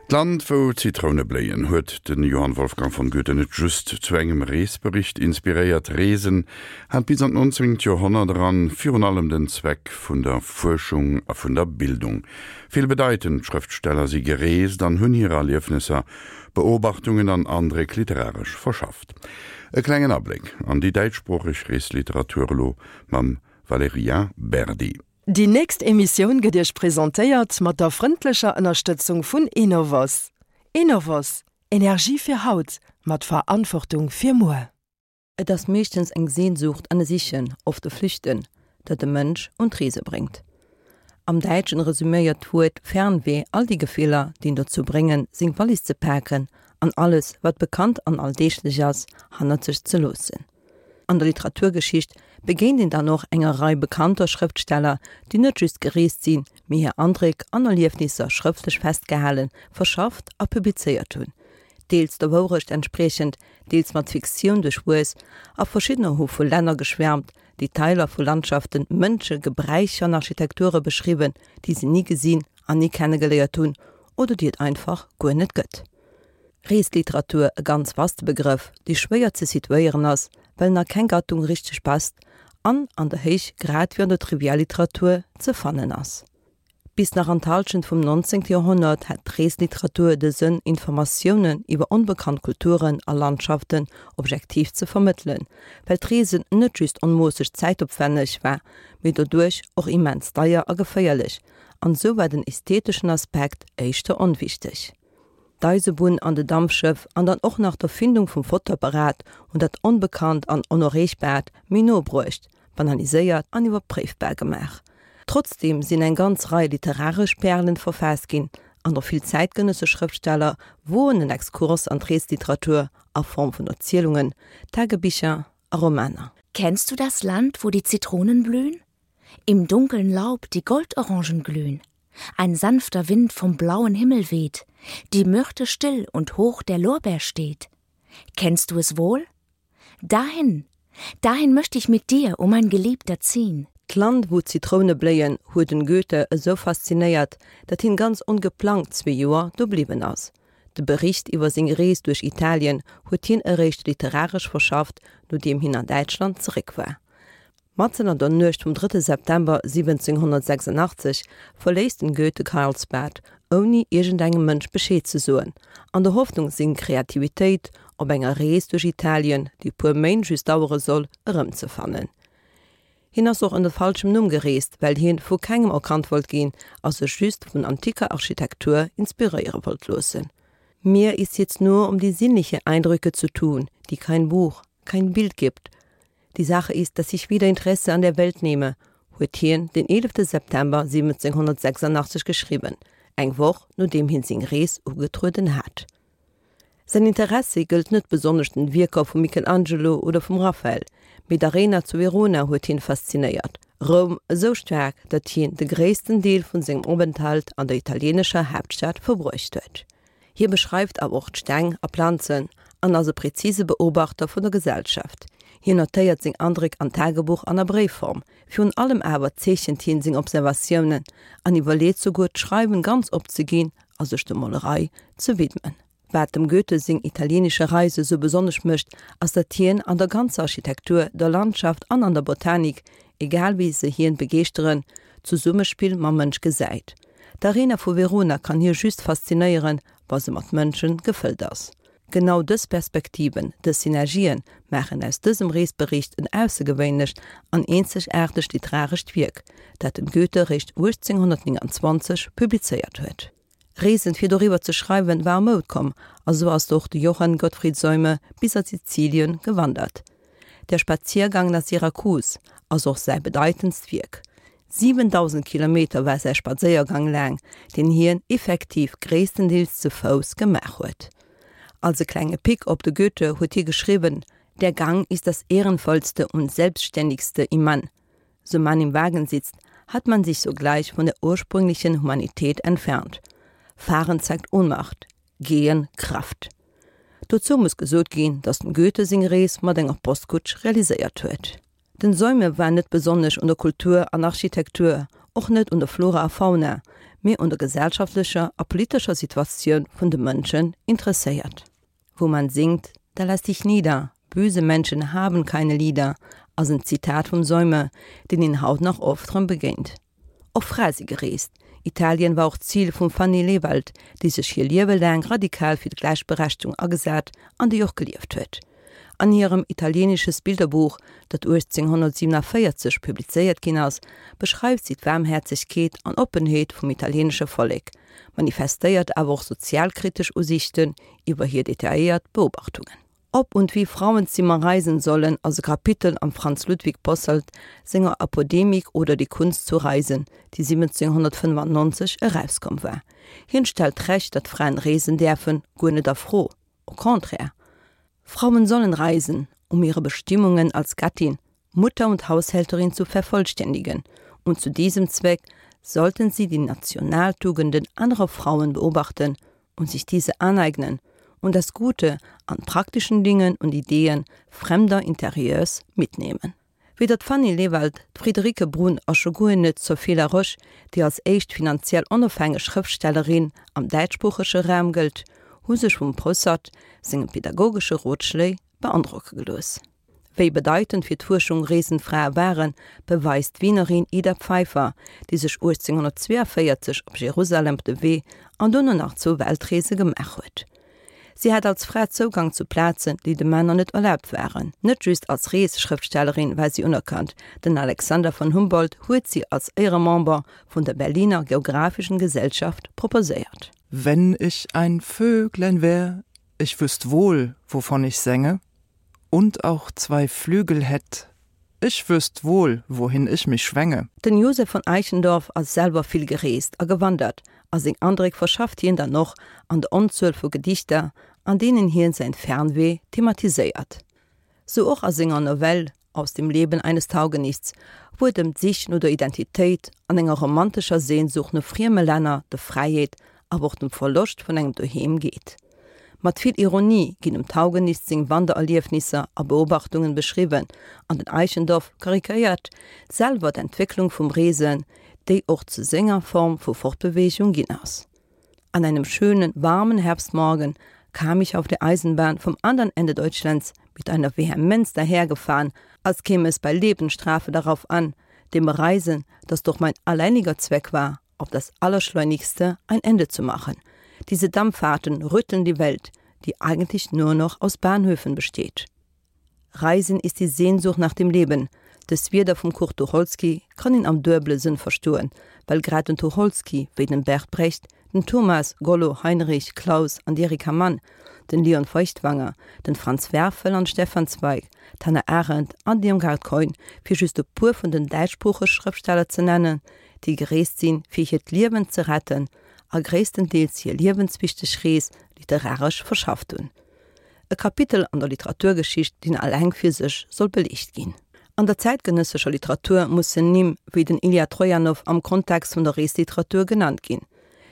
D'Land wou d'Zitroune bléien huet de Johann Wolfgang von Goethe net just zu engem Reesbericht inspiréiert. Reesen hat bis an d'nonzéngt Joerhonnert eran virun allem den Zweck vun der Fuerschung a vun der Bildung. Vill bedeitend Schrëftsteller si gereest an hunn hir Erliefnesser, Beobachtungen an Andréck literaresch verschafft. E klengen Abléck an déi däitschsproocheg Reesliteratur elo mam Valerija Berdi. Déi nächst Emissioun gëtt Iech presentéiert mat der frëndlecher Ënnerstëtzung vun Enovos. Enovos, Energie fir haut, mat Verantwortung fir muer. Et ass meeschtens eng Sehnsucht an e Sichen, oft e Flüchten, dat de Mënsch un d'Reese bréngt. Am Däitschen resüméiert d'Wuert Fernweh all déi Gefiller, déi en dozou bréngen, seng Wallis ze paken an alles, wat bekannt an alldeeglech ass, hannert sech ze loossen. An der Literaturgeschicht begéint een dann och enger Rei bekannter Schrëftsteller, déi net just gereest sinn, mee hir Andréck an Erliefnisser schrëftlech festgehalen, verschafft a publizéiert hunn. Deels der Wourecht entspriechend, deels mat Fiktioun duerchwuess, a verschiddener hu vu Länner geschwärmt, Detailer vu Landschaften, Mënsche, Gebräicher an Architekture beschriwwen, déi se ni gesinn an ni kennegeléiert hunn oder déi et einfach guer net gëtt. Reesliteratur, e ganz vaste Begrëff, dee schwéier ze situéieren ass, well en a keng Gattung richteg passt an an der Héich grad wéi an der Trivialliteratur ze fannen ass. Bis nach an d'Hallschent vum 19. Joerhonnert hat d'Reesliteratur de Sënn, Informatiounen iwwer onbekannt Kulturen a Landschaften objektiv ze vermëttelen, well d'Reesen net just onmoosseg zäitopwänneg war, mee doduerch och immens deier a geféierlech, an esou war den ästheteschen Aspekt éischter onwichteg. D'Eisebunn an de Dampschëff an dann och nach d'Erfindung vum Fotoapparat hunn dat Onbekannt an Onerreechbaart méi no bruecht, banaliséiert an iwwerpréifbar gemaach. Trotzdeem sinn eng ganz Rei literaresch Pärelen verfaasst ginn an och vill zäitgenëssesch Schrëftsteller woen en Exkurs an d'Reesliteratur a Form vun Erzielungen, Tagebicher a Romaner. Kennst du das Land, wo die Zitronen blühen? Im dunkeln Laub die Goldorangen glühen. Ein sanfter Wind vom blauen Himmel weht, die Myrte still und hoch der Lorbeer steht. Kennst du es wohl? Dahin, dahin möchte ich mit dir, o mein Geliebter, ziehn. D'Land wou d'Zitroune bléien huet den Goethe esou faszinéiert, dat hien ganz ongeplangt zwee Joer do bliwwen ass. De Bericht iwwer seng Rees duerch Italien huet hien eréischt literaresch verschafft, nodeem hien an Däitschland zeréck war. Matzen an der Nuecht vum drëtte September 1786 verléisst den Goethe Karlsbad, ouni iergendengem Mënsch Bescheed ze soen, an der Hoffnung seng Kreativitéit op enger Rees duerch Italien, déi e puer Méint just dauere soll, erëmzefannen. Hien ass och ënner falschem Numm gereest, well hien vu kengem erkannt wollt ginn a sech just vun antiker Architektur inspiréiere wollt loossen. Mir ist jetzt nur um die sinnliche Eindrücke zu tun, die kein Buch, kein Bild gibt. Die Sache ist, dass ich wieder Interesse an der Welt nehme, huet hien den 11 September 1786 geschriwwen, eng Woch nodeem hien seng Rees ugetrueden hat. Säin Interessi gëllt net besonnesch den Wierker vum Michelangelo oder vum Raphael, mee d'Arena zu Verona huet hien faszinéiert, Roum esou staark, datt hien de gréissten Deel vun sengem Openthalt an der italienescher Haaptstad verbruecht huet. Hie beschreift awer och d'Steng a Planzen an ass e präzise Beobachter vun der Gesellschaft. Hien notéiert seng Andréck an Tagebuch an a Bréifform. Virun allem awer zeechent hien seng Observatiounen an iwwerleet souguer d'Schreiwen ganz opzeginn a sech der Molerei ze widmen. Wat dem Goethe seng italienische Reise sou besonnesch mécht, ass datt hien an der ganzer Architektur, der Landschaft an an der Botanik, egal wéi se hien begeeschteren, d'Zesummespill mam Mënsch gesäit. D'Arena vu Verona kann hie just faszinéieren, wa se mat Mënsche gefëllt ass. Genau dës Perspektiven, dës Synergien maachen aus dësem Reesbericht en aussergewéinlecht an eenzegaartegt literarescht Wierk, dat den Goethe réischt 1829 publizéiert huet. Reesen fir doriwwer ze schreiwen war a Moud komm, a sou ass och de Johann Gottfried Seume bis a Sizilien gewandert. Der Spaziergang nach Syrakus ass och säi bedeitendst Wierk. 7.000 Kilometer war säi Spadséiergang laang, deen hien effektiv gréisstendeels ze Fouss gemaach huet. Als e klenge Pick op de Goethe huet hie geschriwwen, Der Gang ist das Ehrenvollste und Selbstständigste im Mann. So man im Wagen sitzt, hat man sich sogleich von der ursprünglichen Humanität entfernt. Fahren zeigt Ohnmacht, Gehen Kraft. Dozou muss gesot ginn, datt dem Goethe seng Rees mat enger Postkutsch realiséiert huet. Den Seume war net besonnesch un der Kultur an Architektur. Och net un der Flora a Fauna, mee un der gesellschaftlecher a politescher Situatioun vun de Mënschen interesséiert. Wo man singt, da lass dich nieder, böse Menschen haben keine Lieder ass en Zitat vum Seume, deen een haut nach oft rëm begéint. Och Frae si gereest. Italien war och d'Zil vum Fanny Lewald, déi sech hir Liewe laang radikal fir d'Gläichberechtegung agesat an déi och gelieft huet. An hirem Italienisches Bilderbuch, dat 1847 publizéiert ginn ass, beschreift si d'Waarmhäerzegkeet an Oppenheet vum italieenesche Vollek, manifestéiert awer och sozialkritesch Usiichten iwwer hir detailléiert Beobachtungen. Ob und wie Frauenzimmer reisen sollen ass e Kapitel am Franz Ludwig Posselt senger Apodemik oder die Kunst zu reisen, déi 1795 erauskomm war. Hien stellt d'Recht, datt Fraen reesen däerfen, guer net a Fro, au contraire. Frauen sollen reisen, um ihre Bestimmungen als Gattin, Mutter und Haushälterin zu vervollständigen, und zu diesem Zweck sollten sie die Nationaltugenden anderer Frauen beobachten und sich diese aneignen und das Gute an praktischen Dingen und Ideen fremder Interieurs mitnehmen. Weder d'Fanny Lewald, d'Friederike Brun a scho guer net d'Sophie Laroche, déi als éischt finanziell onofhängeg Schrëftstellerin am däitschsproochege Raum gëllt, hu sech vum Posselt senge pedagogesche Rotschléi beandrocke gelooss. Wéi bedeitend fir d'Fuerschung reesend Frae waren, beweist d'Wienerin Ida Pfeiffer, déi sech 1842 op Jerusalem op de Wee an dono nach zwou Weltreese gemaach huet. Si hat als Fra Zougang zu Plazen, déi de Männer net erlaabt waren. Net just als Reesschrëftstellerin war si unerkannt, den Alexander von Humboldt huet si als Éieremember vun der Berliner Geographischen Gesellschaft proposéiert. Wenn ich ein Vöglein wär, ich wüsst wohl, wovon ich sänge und auch zwei Flügel hätt, ich wüsst wohl, wohin ich mich schwänge. Den Josef von Eichendorff ass selwer vill gereest a gewandert a seng Andréck verschafft hien dann och an der Onzuel vu Gedichter, an deenen hien säin Fernweh thematiséiert. Sou och a senger Novell Aus dem Leben eines Taugenichts, wou et ëm d'Sich no der Identitéit an enger romantescher Sehnsucht no frieme Länner, der Fräiheet, awer och dem Verloscht vun engem Doheem geet. Mat vill Ironie ginn dem Taugenichts seng Wandererliefnisser a Beobachtungen beschriwwen an den Eichendorff karikéiert selwer d'Entwécklung vum Reesen, déi och zu senger Form vu Fortbeweegung ginn ass. An einem schönen, warmen Herbstmorgen kam ich auf der Eisenbahn vom andern Ende Deutschlands mit einer Vehemenz dahergefahren, als käme es bei Lebensstrafe darauf an, dem Reisen, das doch mein alleiniger Zweck war, auf das Allerschleunigste ein Ende zu machen. Diese Dampffahrten rütteln die Welt, die eigentlich nur noch aus Bahnhöfen besteht. Reisen ist die Sehnsucht nach dem Leben. Dës Wierder vum Kurt Tucholsky kann een am duebele Sënn verstoen, well grad den Tucholsky, wéi den Bert Brecht, den Thomas, Gollo, Heinrich, Claus an d'Erika Mann, den Leon Feuchtwanger, den Franz Werfel an Stefan Zweig, d'Hannah Arendt an d'Irmgard Keun, fir just e puer vun den däitschsproochege Schrëftsteller ze nennen, déi gereest sinn, fir hiert Liewen ze retten a gréisstendeels hir liewenswichteg Rees literaresch verschafft hunn. E Kapitel an der Literaturgeschicht, deen alleng fir sech soll beliicht ginn. An der zäitgenëssescher Literatur mussen Nimm wéi den Ilja Trojanow am Kontext vun der Reesliteratur genannt ginn.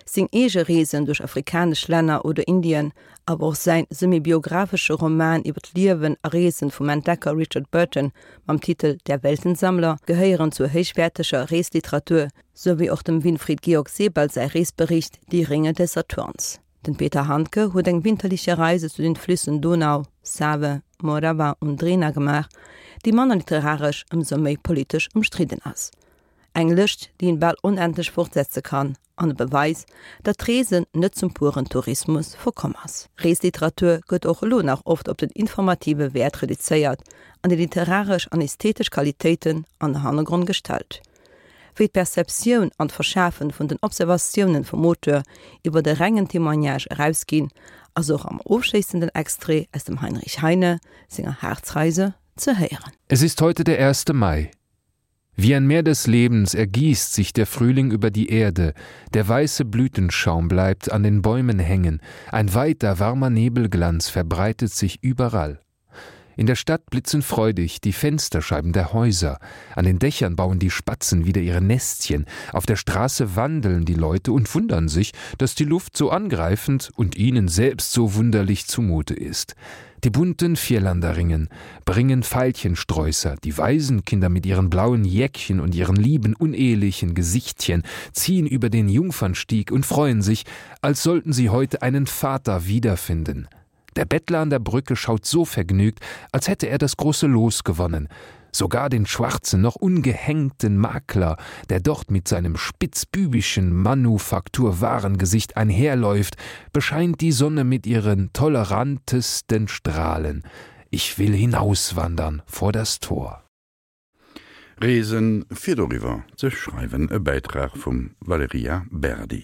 Seng eege Reesen duerch afrikanesch Länner oder Indien, awer och säin semi-biographesche Roman iwwer d'Liewen a Reesen vum Entdecker Richard Burton mam Titel Der Weltensammler gehéieren zur héichwäerteger Reesliteratur, sou wéi och dem Winfried Georg Sebald säi Reesbericht Die Ringe des Saturns. Den Peter Handke huet eng winterliche Reise zu den Flüssen Donau, Save, Morava und Drina gemaach, déi manner literaresch, ëmsou méi politesch ëmstridden ass. Eng Lëscht, déi een bal onendlech fortsetze kann, an e Beweis, datt d'Reesen net zum puren Tourismus verkomm ass. Reesliteratur gëtt och elo nach oft op den informative Wäert reduzéiert an déi literaresch an ästhetesch Qualitéiten an de Hannergrond gestallt. Wéi d'Perceptioun an d'Verschafen vun den Observatiounen vum Auteur iwwer de rengen Témoignage erausginn, ass och am ofschléissenden Extrait aus dem Heinrich Heine senger Harzreise ze héieren. Es ist heute der 1. Mai. Wie ein Meer des Lebens ergießt sich der Frühling über die Erde, der weiße Blütenschaum bleibt an den Bäumen hängen, ein weiter warmer Nebelglanz verbreitet sich überall. In der Stadt blitzen freudig die Fensterscheiben der Häuser. An den Dächern bauen die Spatzen wieder ihre Nestchen. Auf der Straße wandeln die Leute und wundern sich, dass die Luft so angreifend und ihnen selbst so wunderlich zumute ist. Die bunten Vierlanderringen bringen Veilchensträußer, die Waisenkinder mit ihren blauen Jäckchen und ihren lieben unehelichen Gesichtchen ziehen über den Jungfernstieg und freuen sich, als sollten sie heute einen Vater wiederfinden. Der Bettler an der Brücke schaut so vergnügt, als hätte er das große Los gewonnen. Sogar den schwarzen, noch ungehängten Makler, der dort mit seinem spitzbübischen Manufakturwarengesicht einherläuft, bescheint die Sonne mit ihren tolerantesten Strahlen. Ich will hinauswandern vor das Tor. Reesen fir doriwwer ze schreiwen, e Bäitrag vum Valerija Berdi.